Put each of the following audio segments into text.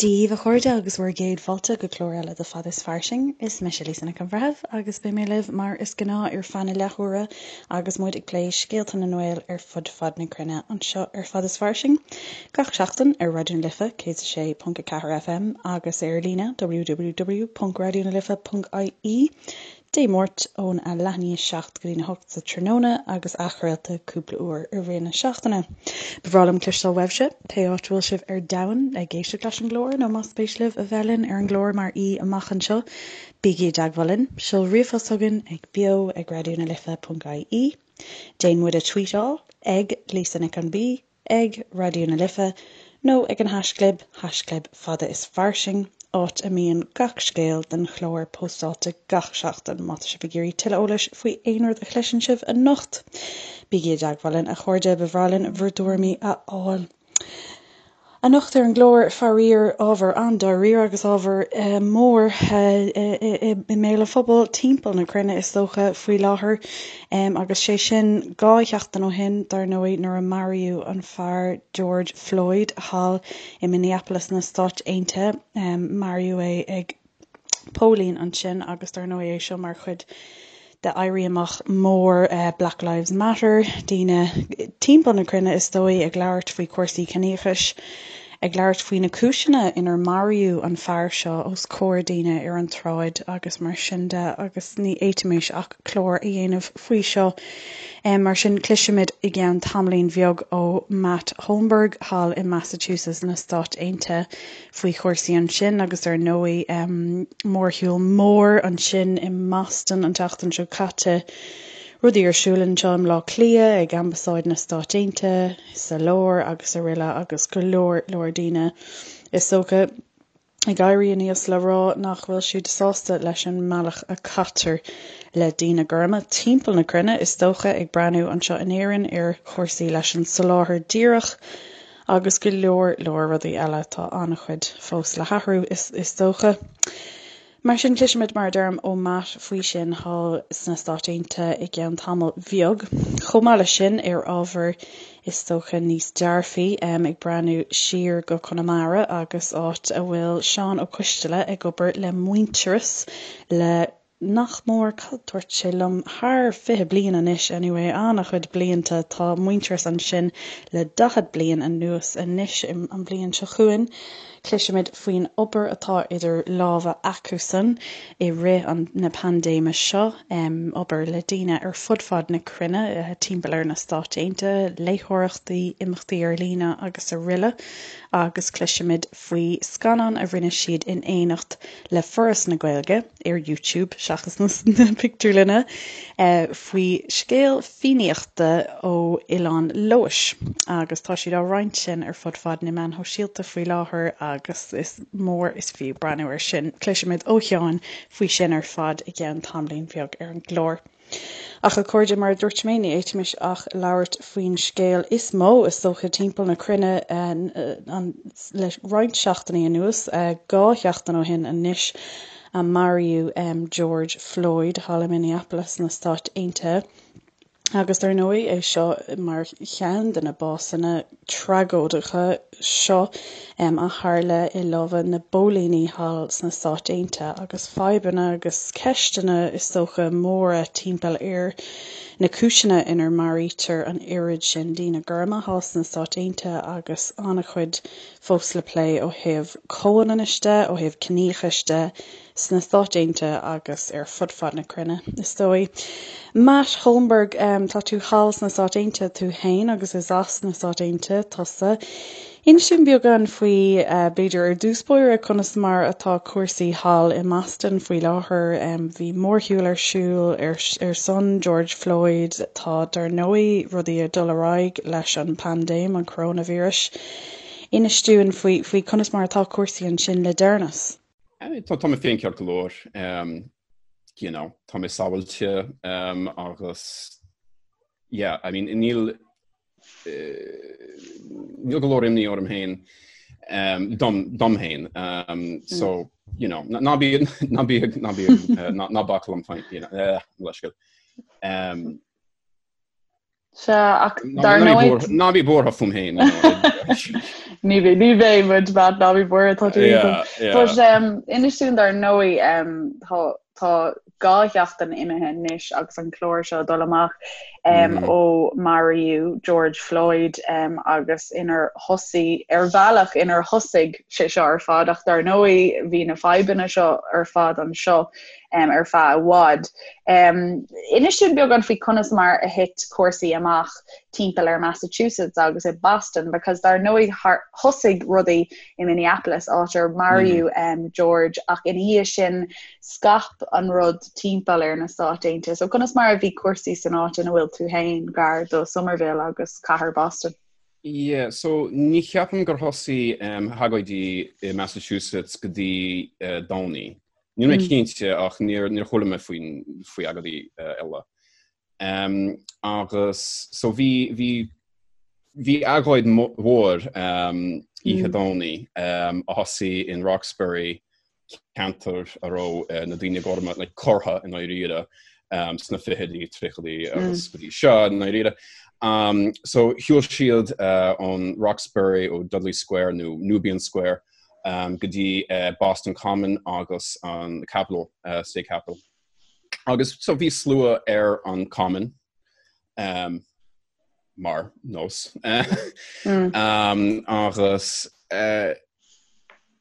Dia daoibh a chairde agus bhur gcéad fáilte go clár eile de Fada is Fairsing. Is mise Lisa Nic an Bhreithimh agus beidh mé libh mar is gnáth ar feadh na leathuaire agus muid ag plé scéalta na nGael ar fud fad na cruinne anseo ar Fada is Fairsing gach seachtain ar Raidió na Life 106.4 FM agus ar líne www.raidionalife.ie. Dé Máirt ón a leath i ndiaidh a 7 go dtí'n 8 sa tráthnóna agus athchraolta cúpla uair i rith na seachtaine. Ba bhreá liom cloisteáil uaibhse, pé áit a bhfuil sibh ar domhan, ag éisteacht leis an gclár nó más spéis libh a bheith linn ar an gclár mar aoi amach anseo, bígí i dteagmháil linn. Seol ríomhphost chugainn ag beo ag raidionalife.ie. Déan muid a tweetáil ag Lisa Nic an B. ag Raidió na Life nó ag an haischlib, haischlib fada is fairsing, áit a mbíonn gach scéal den chlár póstáilte gach seachtain. Má tá sibh ag iarraidh tuilleadh eolais faoi aon rud a chloiseann sibh anocht, bígí i dteagmháil linn, a chairde, ba bhreá linn bhur dtuairimí a fháil. Anocht ar an gclár, faraor, ábhar an-dáiríre agus ábhar mór i mbéal an phobail timpeall na cruinne is dócha faoi láthair. Agus sé sin 2 sheachtain ó shin, dar ndóigh, nuair a maraíodh an fear George Floyd thall i Minneapolis na Stáit Aontaithe. Maraíodh é ag póilín ansin agus dar ndóigh é seo mar chuid de éirí amach mór Black Lives Matter, daoine timpeall na cruinne is dóigh ag labhairt faoi chúrsaí ciníochais, ag labhairt faoi na cúiseanna inar maraíodh an fear seo os comhair daoine ar an tsráid agus mar sin de agus ní fhéadfaimis ach clár a dhéanamh faoi seo. Mar sin cloisfimid i gceann tamaillín bheag ó Matt Holmberg thall i Massachusetts na Stáit Aontaithe faoi chúrsaí ansin agus ar ndóigh mórshiúl mór ansin i mBoston an tseachtain seo caite, rudaí ar siúl anseo i mBleá Cliath, ag Ambasáid na Stáit Aontaithe sa lár agus araile agus go leor leor daoine is dócha ag éirí aníos le rá nach bhfuil siad sásta leis an mbealach a caitear le daoine gorma timpeall na cruinne is dócha, ag breathnú anseo in Éirinn ar chúrsaí leis an soláthar díreach agus go leor leor rudaí eile. Tá an-chuid fós le hathrú, is dócha. Mar sin, cloisfimid, mar a deirim, ó Matt faoi sin thall sna Stáit Aontaithe i gceann tamaill bheag. Chomh maith leis sin, ar ábhar is dócha níos dearfaí, ag breathnú siar go Conamara agus áit a bhfuil Seán Ó Coisteala ag obair le Muintearas le nach mór, cad dúirt sé liom, thar 20 bliain anois, anyway, an-chuid blianta, tá Muintearas ansin le 40 bliain anuas anois, an bhliain seo chugainn. Cloisfimid faoin obair atá idir lámha acusan i rith an na paindéime seo, obair le daoine ar fud fad na cruinne, timpeall ar na Stáit Aontaithe, léitheoireachtaí, imeachtaí ar líne agus araile, agus cloisfimid faoi scannán a rinne siad in éineacht le Foras na Gaeilge. ar YouTube seachas na pictiúrlanna, faoi scéal Fiannaíochta ó Oileán Leodhais agus tá siad á roinnt sin ar fud fad na meáin shóisialta faoi láthair agus is mór is fiú breathnú air sin. Cloisfimid ó Sheán faoi sin ar fad i gceann tamaillín bheag ar an gclár. Ach a chairde, mar a dúirt mé, ní fhéadfaimis ach labhairt faoin scéal is mó, is dócha, timpeall na cruinne le roinnt seachtainí anuas, 2 sheachtain ó shin anois, a maraíodh George Floyd thall i Minneapolis sna Stáit Aontaithe. Agus dar ndóigh, é seo mar cheann de na básanna tragóideacha seo a tharla i lámha na bpóilíní thall sna Stáit Aontaithe agus fadhbanna agus ceisteanna is dócha móra timpeall ar na cúiseanna inar maraítear an oiread sin daoine gorma thall sna Stáit Aontaithe agus an-chuid fós le plé ó thaobh comhionannais de, ó thaobh ciníochais de. sna Stáit Aontaithe agus ar fud fad na cruinne, is dóigh. Matt Holmberg, tá tú thall sna Stáit Aontaithe tú féin agus is as na Stáit Aontaithe tusa. Inis dúinn beagán faoi, b'fhéidir ar dtús báire, conas mar atá cúrsaí thall i mBoston faoi láthair. Bhí mórshiúl ar siúl ar ar son George Floyd. Tá, dar ndóigh, rudaí ag dul ar aghaidh leis an bpaindéim, an coróinvíreas. Inis dúinn faoi faoi conas mar atá cúrsaí ansin le deireanas. Tá mé féin ceart go leor, you know, tá mé sábháilte agus yeah, I mean, níl níl go leor imní orm féin dom dom féin so you know, ná bí ná bí ná bí ná bac liom féin, you know, leithscéal. Sea, ach dar ndóigh... Ná bí buartha fúm féin. Ní bheidh, ní bheidh muid, Matt, ná bí buartha, tá tú iontach. But inis dúinn dar ndóigh, tá tá 2 sheachtain imithe anois agus an clár seo ag dul amach ó maraíodh George Floyd agus inar thosaigh, ar bhealach inar thosaigh sé seo ar fad ach dar ndóigh bhí na fadhbanna seo ar fad anseo ar feadh i bhfad. Inis dúinn beagán faoi conas mar a thit cúrsaí amach timpeall ar Massachusetts agus i Boston because dar ndóigh thosaigh rudaí i Minneapolis áit ar maraíodh George ach ina dhiaidh sin scaip an rud timpeall ar na Stáit Aontaithe. So conas mar a bhí cúrsaí san áit ina bhfuil tú féin gar do Somerville agus cathair Boston? Yeah, so ní cheapaim gur thosaigh agóidí i Massachusetts go dtí Domhnaigh. Níl mé cinnte ach níor níor chuala mé faoin faoi agóidí eile. Agus so bhí bhí bhí agóid mhór oíche Domhnaigh a thosaigh in Roxbury, ceantar a raibh na daoine gorma like curtha i ndáiríre sna fichidí, tríochaidí agus go dtí seo i ndáiríre. So shiúil siad ón Roxbury ó Dudley Square nó Nubian Square go dtí Boston Common agus an Capitol, State Capitol. Agus so bhí slua ar an Common um, mar nós. Mm. um, agus uh,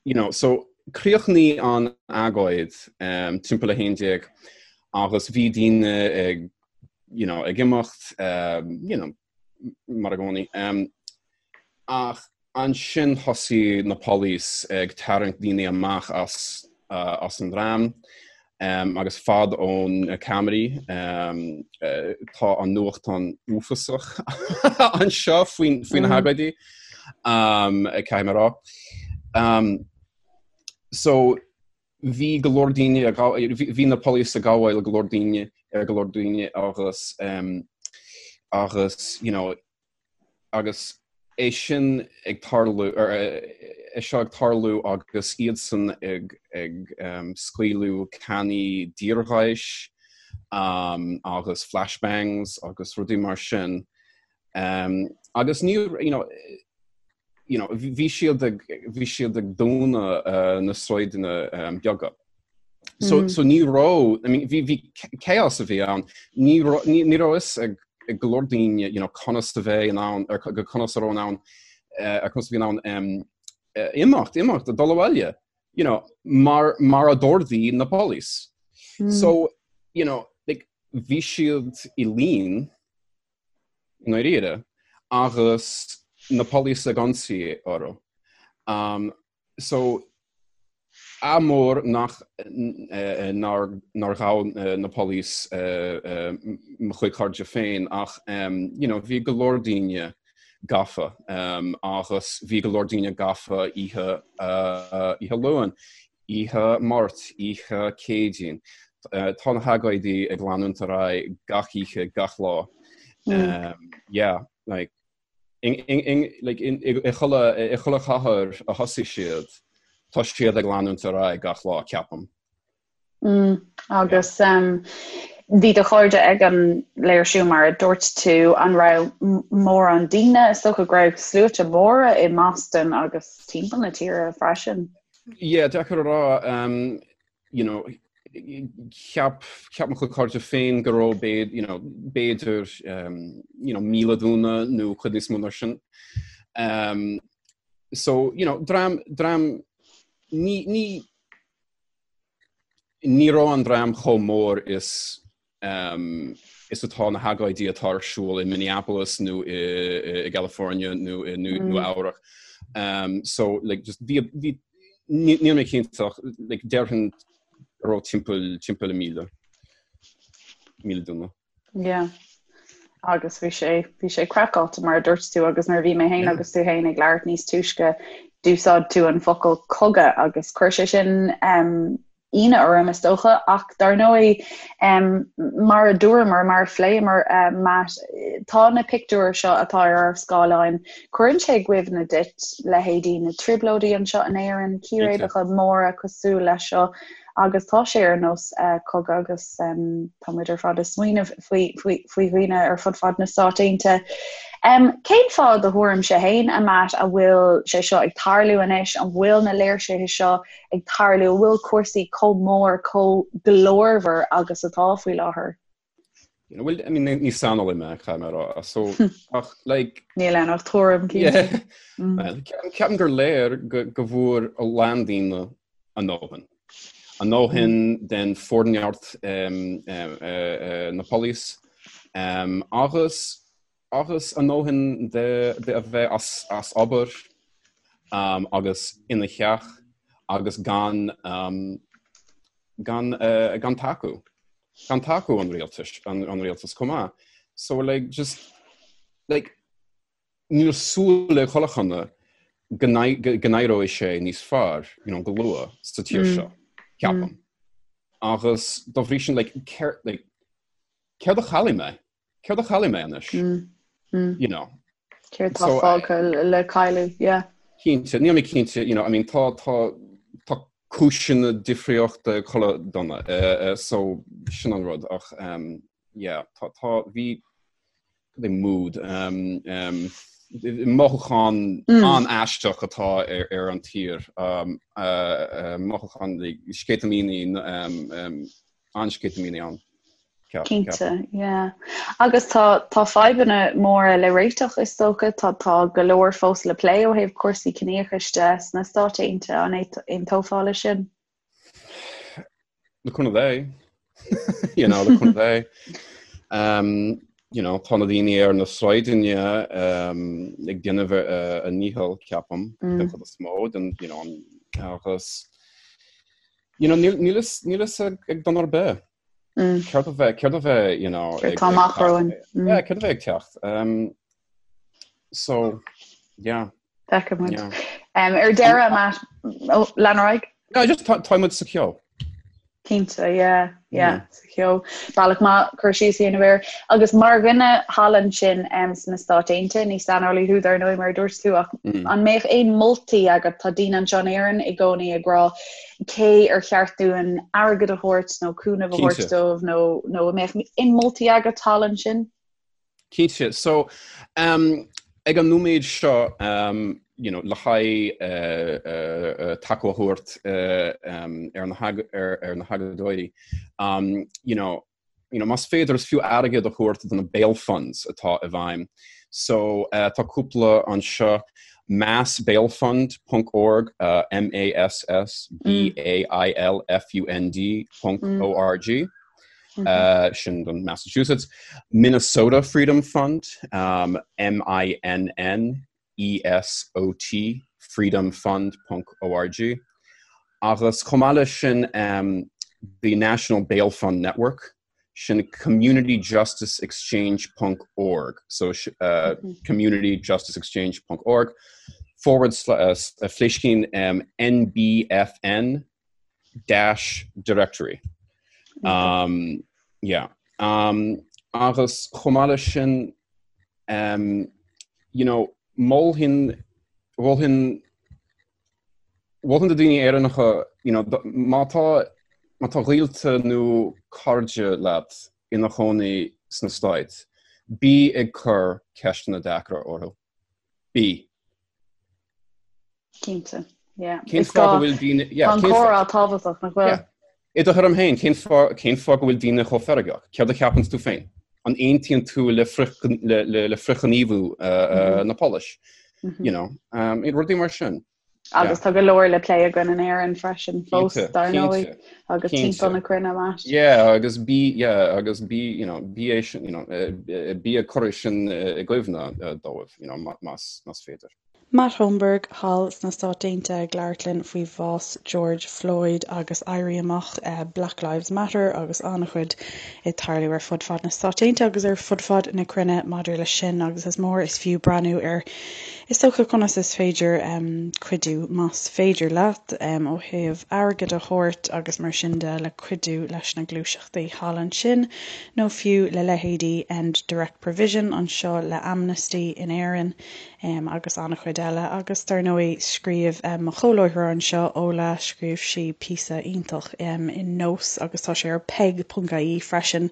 you know, so chríochnaigh an agóid um, timpeall 11 agus bhí daoine ag you know, ag imeacht um, you know, mar i gcónaí. Um, ach Ansin thosaigh na police ag tarraingt daoine amach as as an dream agus fad ó na ceamaraí. Tá an nuachtán uafásach anseo faoi faoi na hagóidí, caithfidh mé a rá. So bhí go leor daoine ag bhí na police ag gabháil go leor daoine ar go leor daoine agus agus you know Agus é sin ag tarlú, é seo ag tarlú agus iadsan ag ag scaoileadh cannaí deorgháis agus flashbangs agus rudaí mar sin. Agus ní, you know, you know, bhí siad ag, bhí siad ag dúnadh na sráideanna beaga. So, so ní raibh, I mean, bhí, bhí chaos a bhí ann, ní raibh, ní, ní raibh fhios ag, ag go leor daoine, you know, conas a bheith in ann, ar go conas a raibh in ann, ar conas a bhí in ann um, imeacht, imeacht, dul abhaile, you know, mar, mar a d'ordaigh na police. Mm. So, you know, like, bhí siad i lín, i ndáiríre, agus na police ag ionsaí orthu. Um, so, ádh mór nach nár nár ghabh na police mo chuid cairde féin ach you know, bhí go leor daoine gafa agus bhí go leor daoine gafa oíche oíche Luain. Oíche Máirt, oíche Céadaoin. Tá na hagóidí ag leanúint ar aghaidh gach oíche, gach lá. Yeah, like, like, i chuile chathair a thosaigh siad, tá siad ag leanúint ar aghaidh gach lá, ceapaim. Mm, agus bhí do chairde ag an léirsiú mar a dúirt tú, an raibh mórán daoine, is dócha go raibh sluaite móra i mBoston agus timpeall na tíre freisin? Yeah, deacair a rá, um, you know, cheap, cheap mo chuid cairde féin go raibh b'fhéidir, you know, b'fhéidir, um, you know, 1,000 duine nó cuid níos mó ná sin. Um, so, you know, dream, dream, ní, ní, Ní raibh an dream chomh mór is is atá na hagóidí atá ar siúl i Minneapolis nó i gCalifornia nó i Nua Eabhrac. So like just bhí bhí níl mé cinnte ach like déarfainn go raibh timpeall timpeall 1,000 1,000 duine. Yeah. Agus bhí sé bhí sé craiceáilte mar a dúirt tú agus nuair a bhí mé féin agus tú féin ag labhairt níos túisce d'úsáid tú an focal cogadh agus chuir sé sin um, ionadh orm is dócha ach dar ndóigh um, mar a dúramar mar a phléamar uh, Matt tá na pictiúir seo atá ar ár scáileáin cuireann sé i gcuimhne duit leithéidí na trioblóidí anseo in Éirinn, círéibeacha móra cosúil leis seo. Agus tá sé ar nós cogadh agus tá muid ar fad ag smaoineamh faoi faoi dhaoine ar fud fad na Stát Aontaithe. Cén fáth i do thuairimse féin, a Matt, a bhfuil sé seo ag tarlú anois? An bhfuil na léirsithe seo ag tarlú? An bhfuil cúrsaí chomh mór, chomh glórmhar agus atá faoi láthair? You know, well, I mean, ní saineolaí mé, caithfidh mé a rá, so, ach, like... Níl ann ach tuairim, cinnte. Mm. Well, ceapaim gur léir go, go bhfuair a lán daoine a ndóthain. A ndóthain mm. den forneart um, um, uh, uh, na police, um, agus agus a ndóthain de, de a bheith as, as obair um, agus ina theach agus gan um, gan, uh, gan tacú. Gan tacú an rialtais, an, an rialtas chomh maith. So like just like níl súil ag chuile dhuine go n-éireoidh sé níos fearr, you know, go luath sa tír mm. seo, ceapaim. Mm. Agus dá bhrí sin like, céard, like, céard a chaillfidh mé? Céard a chaillfidh mé anois? Mm. Mm. You know. Céard tá fágtha le cailleadh, yeah. Cinnte, níl mé cinnte, you know, I mean, tá, tá, tá cúiseanna difríochta ag chuile dhuine, uh, uh, so sin an rud, ach, um, yeah, tá, tá, bhí, cad é mood, um, um, mothúchán mm. an-aisteach atá ar, ar an tír, um, uh, uh, mothúchán sceitimíní, um, um, an-sceitimíní ann. Cinnte, yeah. Agus tá tá fadhbanna móra le réiteach is dócha, tá tá go leor fós le plé ó thaobh cúrsaí ciníochais de sna Stáit Aontaithe, an aontófá leis sin? Le cúnamh Dé. You know, le cúnamh Dé. Um, you know, tá na daoine ar na sráideanna um, ag déanamh a, a ndícheall, ceapaim, mm. den chuid is mó, den, you know, agus you know, níl níl a fhios ag duine ar bith. Mm. Céard a bheidh, céard a bheidh, you know, Céard tá amach romhainn. Mm. Yeah, céard a bheidh ag teacht. Um, so, yeah. Feicfidh muid. Yeah. Um, ar deireadh, Matt, oh, lean ar aghaidh? No, just tá muid sa cheo. Cinnte, yeah, yeah, sa cheo. Bealach maith cur síos a dhéanamh air. Agus mar dhuine thall ansin um, sna Stáit Aontaithe, ní saineolaí thú dar ndóigh mar a dúirt tú, ach mm. an mbeadh aon moltaí agat tá daoine anseo in Éirinn i gcónaí ag rá cé ar cheart dúinn airgead a thabhairt nó cúnamh a thabhairt dóibh nó nó an mbeadh aon moltaí agat thall ansin? Cinnte. So, um, ag an nóiméad seo, um, you know, le haghaidh uh, uh, uh, tacú a thabhairt uh, um, ar na, ar, ar na hagóideoirí, um, you know, you know, más féidir is fiú airgead a thabhairt do na bail funds atá i bhfeidhm. So uh, tá cúpla anseo massbailfund.org, uh, M A S S B A I L F U N D ponc mm. O R G. Mm -hmm. uh, sin don Massachusetts. Minnesota Freedom Fund, um, M I N N E S O T freedomfund ponc org. Agus chomh maith leis sin um, the National Bail Fund Network, sin communityjusticeexchange ponc org, so uh, mm -hmm. communityjusticeexchange ponc org, forward slash uh, fléiscín um, NBFN dash directory. Um, yeah. Um, agus chomh maith leis sin um, you know, mholfainn mholfainn mholfainn do daoine Éireannacha you know, má tá má tá gaolta nó cairde leat ina chónaí sna Stáit, bí ag cur ceisteanna deacra orthu. Bí. Cinnte, yeah. Cén fáth go bhfuil daoine... Yeah, Tá an comhrá tábhachtach, nach bhfuil? Yeah. I do thuairim féin, cén fáth, cén fáth go bhfuil daoine chomh feargach? Céard a cheapann tú féin? An aontaíonn tú le frith, le, le, le frithghníomhú uh, mm -hmm. uh, na póilíní? Mm -hmm. You know, um, rudaí mar sin. Agus tá go leor le plé againn in Éirinn freisin fós dar ndóigh agus timpeall na cruinne Matt. Yeah, agus bí yeah, agus bí you know, bí é sin, you know, eh, bí ag cur sin i gcuimhne dóibh, you know, más, más féidir. Matt Holmberg thall sna Stáit Aontaithe ag labhairt linn faoi bhás George Floyd agus éirí amach Black Lives Matter agus an-chuid ag tarlú ar fud fad na Stáit Aontaithe agus ar fud fad na cruinne maidir leis sin agus is mór is fiú breathnú ar is dócha conas is féidir cuidiú más féidir leat ó thaobh airgead a thabhairt agus mar sin de le cuidiú leis na gluaiseachtaí thall ansin nó fiú le leithéidí End Direct Provision anseo le Amnesty in Éirinn. Agus an-chuid eile. Agus dar ndóigh, scríobh mo chomhláithreoir anseo, Ola, scríobh sí píosa iontach i Nós agus tá sé ar peig.ie freisin,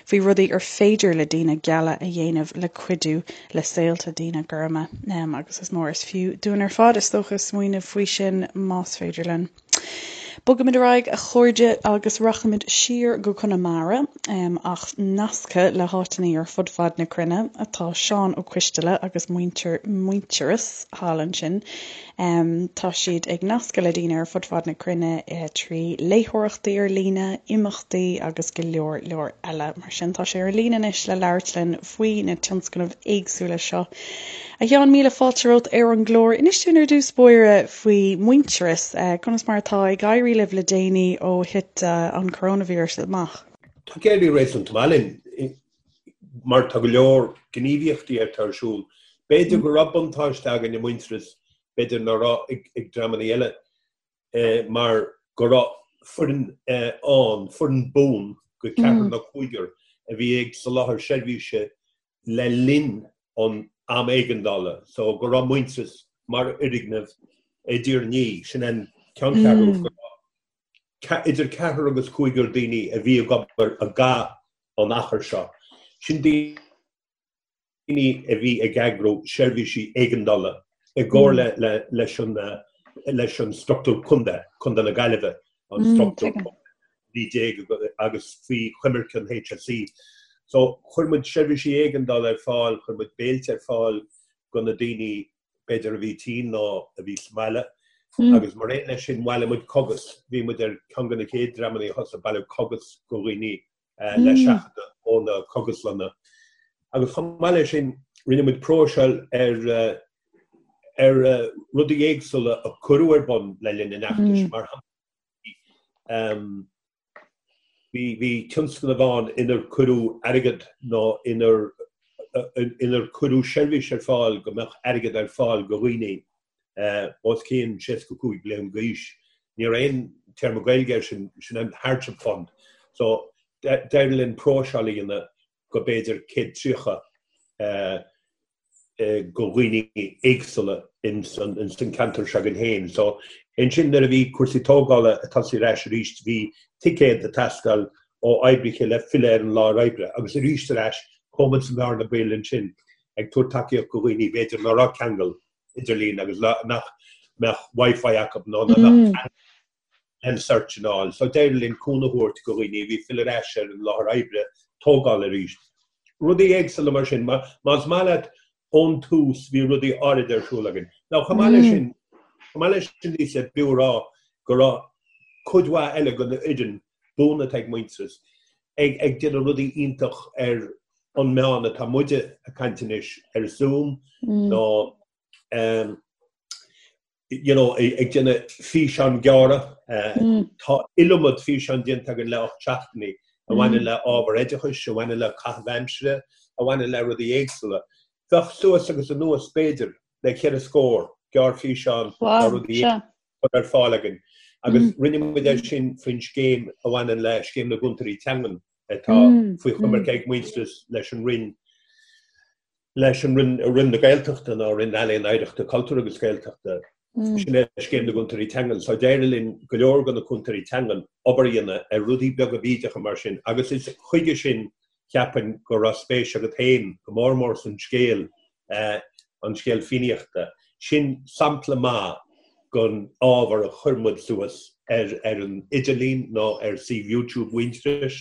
faoi rudaí ar féidir le daoine geala a dhéanamh le cuidiú le saolta daoine gorma. Agus is mór is fiú dúinn ar fad, is dócha, smaoineamh faoi sin más féidir linn. Bogaimid ar aghaidh, a chairde, agus rachaimid siar go Conamara, ach nasctha le háiteanna ar fud fad na cruinne atá Seán Ó Coisteala agus muintir Muintearas thall ansin. Tá siad ag nascadh le daoine ar fud fad na cruinne trí léitheoireachtaí ar líne, imeachtaí agus go leor leor eile. Mar sin, tá sé ar líne anois le labhairt linn faoi na tionscnaimh éagsúla seo. A Sheáin, míle fáilte romhat ar an gclár. Inis dúinn ar dtús báire faoi Muintearas, conas mar atá ag éirí libh le déanaí ó thit an coróinvíreas amach? Tá ag éirí réasúnta maith linn mar tá go leor gníomhaíochtaí atá ar siúl. B'fhéidir go raibh buntáiste againn i Muintearas, b'fhéidir nach raibh ag dreamanna eile. mar go raibh foireann ann, foireann buan de cheathrar nó cúigear a bhí ag soláthar seirbhíse le linn an am éigeandála, so go raibh Muintearas mar fhoirgneamh i dTír an Fhia, sin an ceanncheathrú, go raibh idir ceathrar agus cúigear daoine a bhí ag obair i gcaitheamh an achair seo. Sin daoine. daoine a bhí ag eagrú seirbhísí éigeandála i gcomhairle leis an leis an struchtúr contae, Contae na Gaillimhe, an struchtúr 19 agus faoi choimirce an HSE. So chuir muid seirbhísí éigeandála ar fáil, chuir muid béilte ar fáil do na daoine b'fhéidir a bhí tinn nó a bhí sa mbaile agus mar aon leis sin bhailigh muid cogais, bhí muid ar cheann de na chéad dreamanna a thosaigh ag bailiú cogais do dhaoine le seachadadh ó na cogaslanna. Agus chomh maith leis sin, rinne muid próiseáil ar ar rudaí éagsúla a cuireadh ar bun le linn an fheachtais. Mar shampla, bhí bhí tionscnamh ann inar cuireadh airgead nó inar inar cuireadh seirbhís ar fáil go mbeadh airgead ar fáil do dhaoine os cionn 65 bliain d'aois. Ní raibh aon téarma Gaeilge air sin, sin an hardship fund. So d'éirigh linn próiseáil a dhéanamh go b'fhéidir 130 go dhaoine éagsúla in san ceantar seo againn féin. So ansin nuair a bhí cúrsaí tógála ag tosú ar ais arís bhí ticéad ag teastáil ó oibrithe le filleadh ar an láthair oibre agus arís ar ais chuaigh muid sa mbearna baoil ansin ag tabhairt tacaíocht go dhaoine b'fhéidir nach raibh ceangal idirlín agus nach mbeadh Wi-Fi acu nó nach mbeadh an search and all. So d'éirigh linn cúnamh a thabhairt go dhaoine a bhí ag filleadh ar ais ar an láthair oibre tógáil arís. Rudaí éagsúla mar sin. Más maith leat ón tús bhí rudaí áirid ar siúl againn. Now chomh maith leis sin, chomh maith leis sin Lisa, b'fhiú a rá go raibh cuid mhaith eile den fhoireann buan atá ag Muintearas ag ag déanamh rudaí iontach ar an meán atá muide ag caint anois ar Zoom nó you know ag déanamh físeán gearra. Tá iliomad físeán déanta againn le 8 seachtainí a bhaineann le ábhar oideachais, a bhaineann le caitheamh aimsire, a bhaineann le rudaí éagsúla. Bheadh suas agus anuas b'fhéidir le ceithre scór gearrfhíseán nó rudaí curtha ar fáil againn agus rinne muid é sin faoin scéim a bhaineann le Scéim na gCúntóirí Teangan atá faoi choimirce ag Muintearas leis an Roinn leis an Roinn Roinn na Gaeltachta nó Roinn Ealaíon Oidhreachta Cultúir agus Gaeltachta. Sin é Scéim na gCúntóirí Teangan. So d'éirigh linn go leor de na cúntóirí teangan obair a dhéanamh ar rudaí beaga bídeacha mar sin agus is chuige sin cheapfainn go raibh spéis agat féin go mór mór san scéal an scéal Fiannaíochta. Sin sampla maith den ábhar a chuir muid suas ar ar an idirlíon nó ar suíomh YouTube Mhuintearais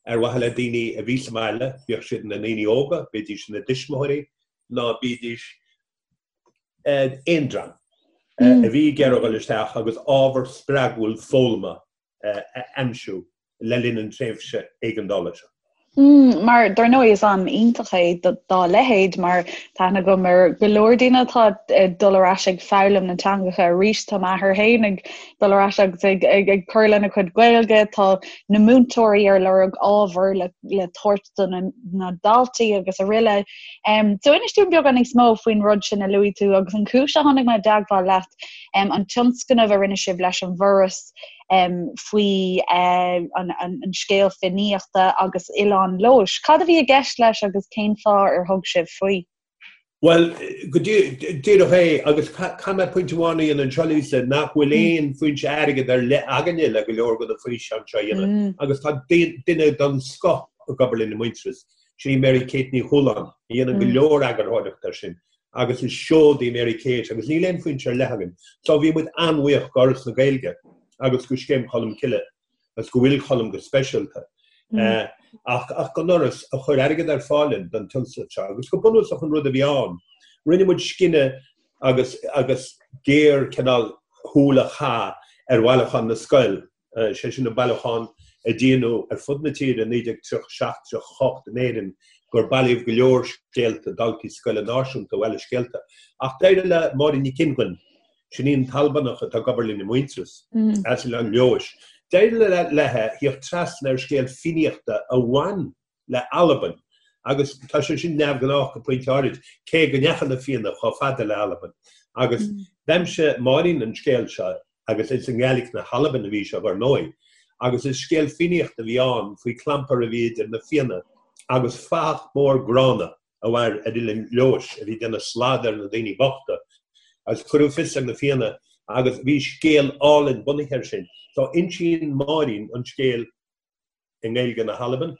ar mhaithe le daoine a bhí sa mbaile, bíodh siad ina ndaoine óga, bídís ina dtuismitheoirí ná bídís aon dream a bhí ag iarraidh dul isteach agus ábhar spreagúil foghlama a aimsiú le linn an tréimhse éigeandála seo. Mar, dar ndóigh, is am iontach é dá leithéid, mar tá aithne agam ar go leor daoine atá ag dul ar ais ag foghlaim na teangacha arís. Tá m'athair féin ag dul ar ais agus ag, ag, ag cur lena chuid Gaeilge. Tá na múinteoirí ar lorg ábhar le, le tabhairt do na, na daltaí agus araile. Um, so inis dúinn beagán níos mó faoin rud sin a luaigh tú agus an chúis a tháinig mé i dteagmháil leat, um, an tionscnamh a rinne sibh leis an bhForas, faoi an scéal Fiannaíochta agus Oileán Leodhais. Cad a bhí i gceist leis agus cén fáth ar thug sibh faoi? Bhuel, go díreach é, agus caithfidh mé pointe amháin a dhéanamh anseo, Lisa, nach bhfuil aon foinse airgid ar leith againne le go leor de na físeáin seo a dhéanamh, agus tá duine den scoth ag obair linn i Muintearas, sin í Mary Kate Ní Chualáin, a dhéanann go leor eagarthóireachta air sin, agus is seod í Mary Kate, agus níl aon foinse ar leith againn. So bhí muid an-bhuíoch d'Fhoras na Gaeilge agus go Scéim Cholm Cille. agus go bhfuil Colm go speisialta, ach don Fhoras a chuir airgead ar fáil linn don tionscnamh seo. Agus go bunúsach an rud a bhí ann, rinne muid scinneadh agus agus géar cineál shúil a chaitheamh ar bhailiúchán na scoil, sé sin an bailiúchán a déanadh ar fud na tíre i 1937, 38 in Éirinn, gur bailíodh go leor scéalta daltaí scoile náisiúnta a bhailigh scéalta. Ach d'éirigh le Máirín Nic Fhionnghain, Sin í an tAlbanach atá ag obair linn i Muintearas, as Oileán Leodhais. D'éirigh léi theacht trasna ar scéal Fiannaíochta a bhain le Albain, agus tá sé sin neamhghnách go pointe áirid, cé go ndeachaigh na Fianna chomh fada le Albain. Agus d'aimsigh Máirín an scéal seo, agus is i nGaeilge na hAlban a bhí sé, ar ndóigh, agus is scéal Fiannaíochta a bhí ann faoi chlampar a bhí idir na Fianna agus fathach mór gránna. a mhair ar Oileán Leodhais, a bhí ag déanamh slad ar na daoine bochta, agus cuireadh fios ar na Fianna agus bhí scéal álainn bunaithe air sin. So insíonn Máirín an scéal i nGaeilge na hAlban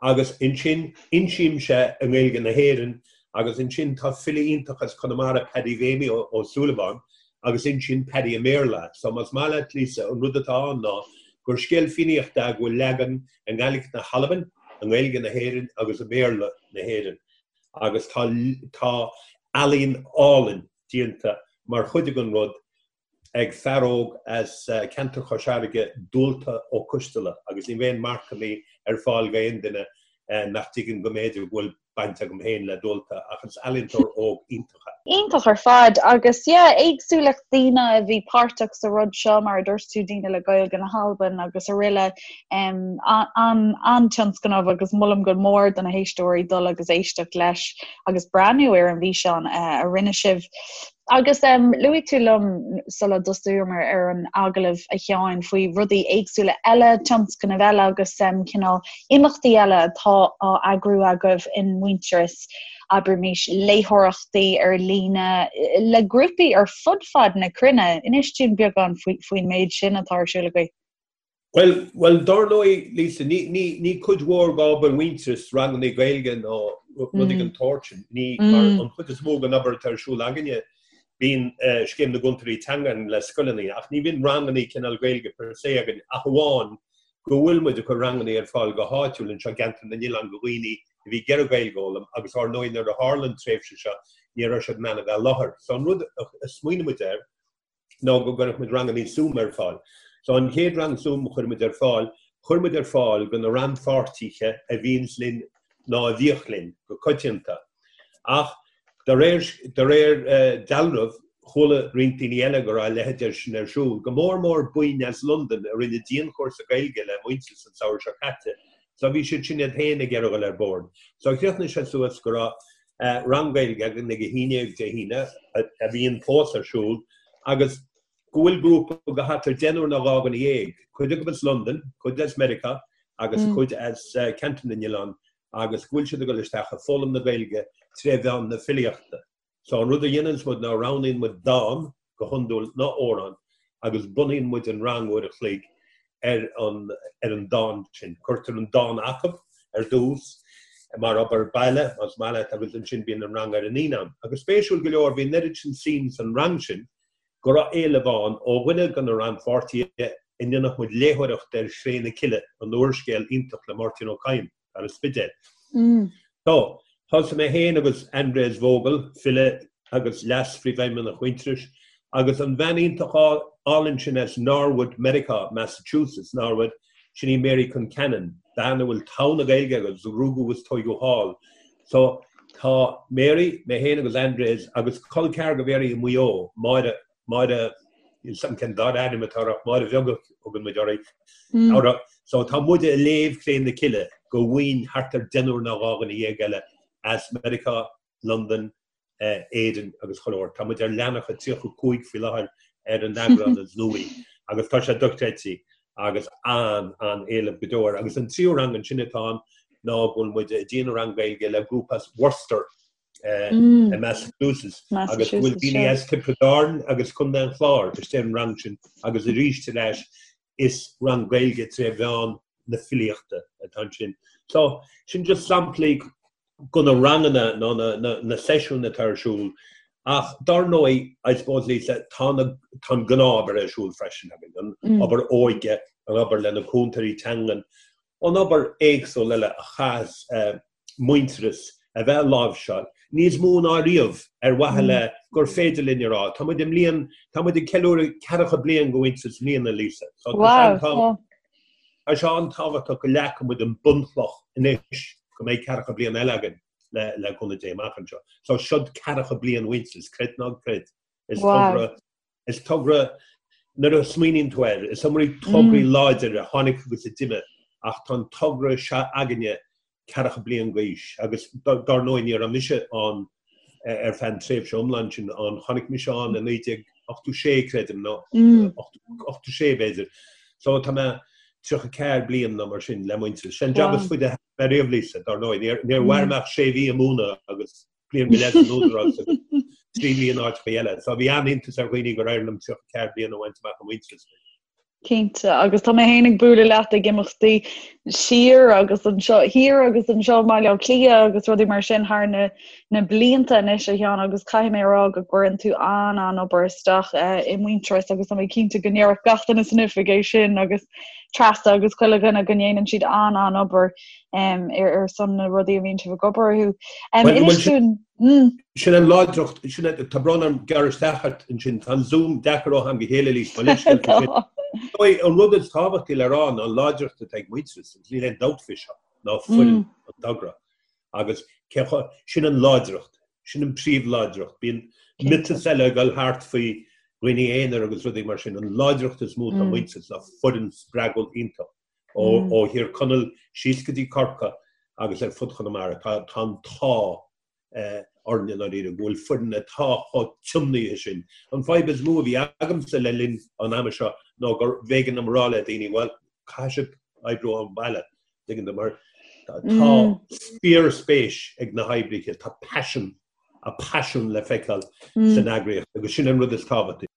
agus ansin insímse i nGaeilge na hÉireann agus ansin tá file iontach as Conamara, Paddy Mhéimí Ó Súilleabháin, agus insíonn Paddy i mBéarla. So más maith leat, Lisa, an rud atá ann ná gur scéal Fiannaíochta é go bhfuil leagan i nGaeilge na hAlban, i nGaeilge na hÉireann agus i mBéarla na hÉireann agus tá tá ealaín álainn déanta mar chuid den rud ag fear óg as ceantar Chois Fharraige, Dualta Ó Coisteala, agus ní bheidh aon marcanna ar fáil d'aon duine nach dtuigeann go mb'fhéidir go bhfuil baint agam féin le Dualta ach is ealaíontóir óg iontach é. Iontach ar fad agus yeah éagsúlacht daoine a bhí páirteach sa rud seo mar a dúirt tú daoine le Gaeilge na hAlban agus araile um, an-tionscnamh agus molaim go mór do na héisteoirí dul agus éisteacht leis agus breathnú ar an bhfíseán uh, a rinne sibh. Agus luaigh tú liom sula dtosaíomar ar an agallamh, a Sheáin, faoi rudaí éagsúla eile, tionscnaimh eile agus cineál imeachtaí eile atá á eagrú agaibh in Muintearas, abraimis léitheoireachtaí ar líne le grúpaí ar fud fad na cruinne. Inis dúinn beagán faoin méid sin atá ar siúl agaibh. Bhuel, bhuel, dár ndóigh, Lisa, ní, ní, ní cuid mhór d'obair Mhuintearais ranganna Gaeilge nó rudaí den tsórt sin. Ní, mar an chuid is mó den obair atá ar siúl againne, bíonn Scéim na gCúntóirí Teanga againn le scoileanna, ach ní bhíonn ranganna cineál Gaeilge per se againn ach amháin go bhfuil muid ag cur ranganna ar fáil go háitiúil anseo i gceantar na n-oileán do dhaoine a bhí ag iarraidh Gaeilge a fhoghlaim agus ár ndóigh nuair a tharla an tréimhse seo ní raibh siad in ann a bheith i láthair. So an rud a smaoinigh muid air, ná go gcuirfeadh muid rangannaí Zoom ar fáil. So an chéad rang Zoom a chuir muid ar fáil, chuir muid ar fáil do na rannpháirtithe a bhíonns linn ná a bhíodh linn go coitianta. Ach de réir, de réir dealraimh, chuala roinnt daoine eile go raibh a leithéid de sin ar siúl, go mór mór buíon as Londain a rinne dianchúrsa Gaeilge le Muintearas an samhradh seo caite. So bhí siad sin iad féin ag iarraidh dul ar bord. So chríochnaigh sé suas go raibh rang Gaeilge againn ag 11 Dé hAoine, a bhíonn fós ar siúl, agus go bhfuil grúpa de thart ar deichniúr nó 12, cuid acu as Londain, cuid as Meiriceá agus cuid as Ceantar na nOileán, agus go bhfuil siad ag dul isteach ag foghlaim na Gaeilge tré mheán na filíochta. So an rud a dhéananns muid ná roghnaíonn muid dán, go hiondúil, nó amhrán agus bunaíonn muid an rang uair a chloig ar an ar an dán sin. Cuirtear an dán acu ar dtús mar obair baile, más maith leat, agus ansin bíonn an rang ar an Aoine. Agus spéisiúil go leor, bhí an oiread sin suim san rang sin go raibh éileamh ann ó dhuine de na rannpháirtithe go ndéanfadh muid léitheoireacht ar Chré na Cille, an úrscéal iontach le Máirtín Ó Cadhain. Ar an Spidéal. So, thosaigh mé féin agus Andreas Vogel, file agus leas-phríomhfheidhmeannach Mhuintearais, agus an bhean iontach álainn sin as Norwood, Meiriceá, Massachusetts, Norwood, sin í Mary Concannon, bean a bhfuil togha na Gaeilge agus a rugadh agus tóigeadh thall. So, tá Mary, mé féin agus Andreas agus col ceathar do Mhary i Maigh Eo, Máire, Máire, níl 's agam cén dara ainm atá uirthi ach Máire Bheag a thugann muid uirthi. So tá muid ag léamh Cré na Cille do bhuíon thart ar deichniúr nó 12 dhuine eile as Meiriceá, Londain, Éirinn agus chuile shórt. Tá muid ar leathanach a 35 faoi láthair ar an eagrán is nuaí agus tá sé dochreidte agus an-an-éileamh go deo air. Agus an tríú rang ansin atá ann ná go bhfuil muid ag déanamh rang Gaeilge le grúpa as Worcester. I Massachusetts agus go bhfuil daoine as Tiobraid Árann agus Contae an Chláir istigh ar an rang sin agus arís ar ais is rang Gaeilge tré mheán na filíochta atá ansin. So sin just samplaí de na ranganna nó na seisiúin atá ar siúl ach dar ndóigh, I suppose Lisa, tá na tá an gnáth-obair ar siúl freisin againn, an obair óige, an obair le na cúntóirí teangan, an obair éagsúil eile a chaithfeas Muintearas a bheith á láimhseáil, níos mó ná riamh, ar mhaithe le gur féidir linn a rá, tá muid i mbliain, tá muid ag ceiliúradh ceathracha bliain de Mhuintearas i mbliana, Lisa. So tá sé an, tá sé an-tábhachtach go leagfaidh muid an bunchloch anois go mbeidh ceathracha bliain eile againn le, le cúnamh Dé amach anseo. So siod ceathracha bliain Mhuintearas, creid nó ná creid. Is togra Is togra, nuair a smaoiníonn tú air, is iomaí tograí láidir a tháinig agus a d'imigh ach tá an togra seo againne ceathracha bliain d'aois agus dár ndóigh ní raibh mise ann ar feadh an tréimhse iomlán sin ann, tháinig mise ann i 1986 creidim nó 86 b'fhéidir. So tá mé 34 bliain nó mar sin le Muintearas. Sin jab is faide a thóg mé riamh Lisa, dár ndóigh. Níor mhair mé ach sé mhí ag múineadh agus bliain go leith san Údarás agus 3 mhí in áiteacha eile. So bhí an-iontas ar dhaoine gur éirigh liom 34 bliain a bhaint amach i Muintearas. Cinnte, agus tá mé féin ag bualadh leat ag imeachtaí siar agus anseo, thiar agus anseo i mBaile Átha Cliath agus rudaí mar sin thar na, na blianta anois a Sheáin agus caithfidh mé a rá go gcuireann tú an-an-obair isteach eh, i Muintearas agus tá mé cinnte go ndéarfadh gach duine san oifig é sin agus Treasa agus chuile dhuine go ndéanann siad an-an-obair um, ar, ar son na rudaí a bhíonn sibh ag obair orthu. Um, Well, inis well, sin- dúinn, mm, Sin an láidreacht, sin an- tá brón orm gearradh isteach ort ansin, tá an Zoom deacair ó am go chéile Lisa, mo leithscéal faoi sin. tá. Dóigh, An rud is tábhachtaí le rá ná an láidreacht atá ag Muintearas, agus níl aon dabht faoi seo, ná foireann an togra. Agus cé chomh- sin an láidreacht, sin an príomhláidreacht. Bíonn miotas eile ag dul thart faoi dhaoine aonair agus rudaí mar sin. An láidreacht is mó atá ag Muintearas ná foireann spreagúil iontach. Ó Thír Chonaill síos go dtí Corcaigh agus ar fud Chonamara, tá an t-ádh orainn i ndáiríre go bhfuil foireann atá chomh tiomnaithe sin. An fadhb is mó a bhí agamsa le linn an ama seo ná gur b'éigean dom a rá le daoine, bhuel, caithfidh sibh oibriú ón mbaile, tuigeann tú, mar tá fíorspéis ag na hoibrithe, tá paisean, a paisean le feiceáil san eagraíocht agus sin an rud is tábhachtaí.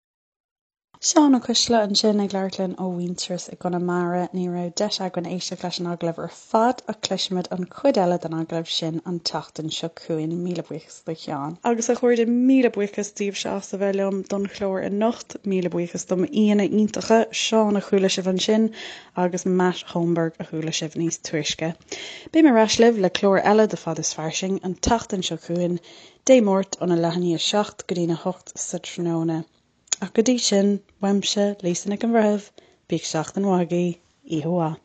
Seán Ó Coistealbha ansin ag labhairt linn ó Mhuintearas i gConamara. Ní raibh deis againn éisteacht leis an agallamh ar fad ach cloisfimid an chuid eile den agallamh sin an tseachtain seo chugainn. Míle buíochas do Sheán. Agus a chairde, míle buíochas daoibhse as a bheith liom don chlár anocht. Míle buíochas do m'aíonna iontacha, Seán a chuala sibh ansin agus Matt Holmberg a chuala sibh níos túisce. Beidh mé ar ais libh le clár eile de Fad is Fairsing an tseachtain seo chugainn, Dé Máirt óna leath i ndiaidh a 7 go dtína 8 sa tráthnóna. Ach go dtí sin, uaimse, Lisa Nic an Bhreithimh, bíodh seachtain mhaith agaibh, oíche mhaith.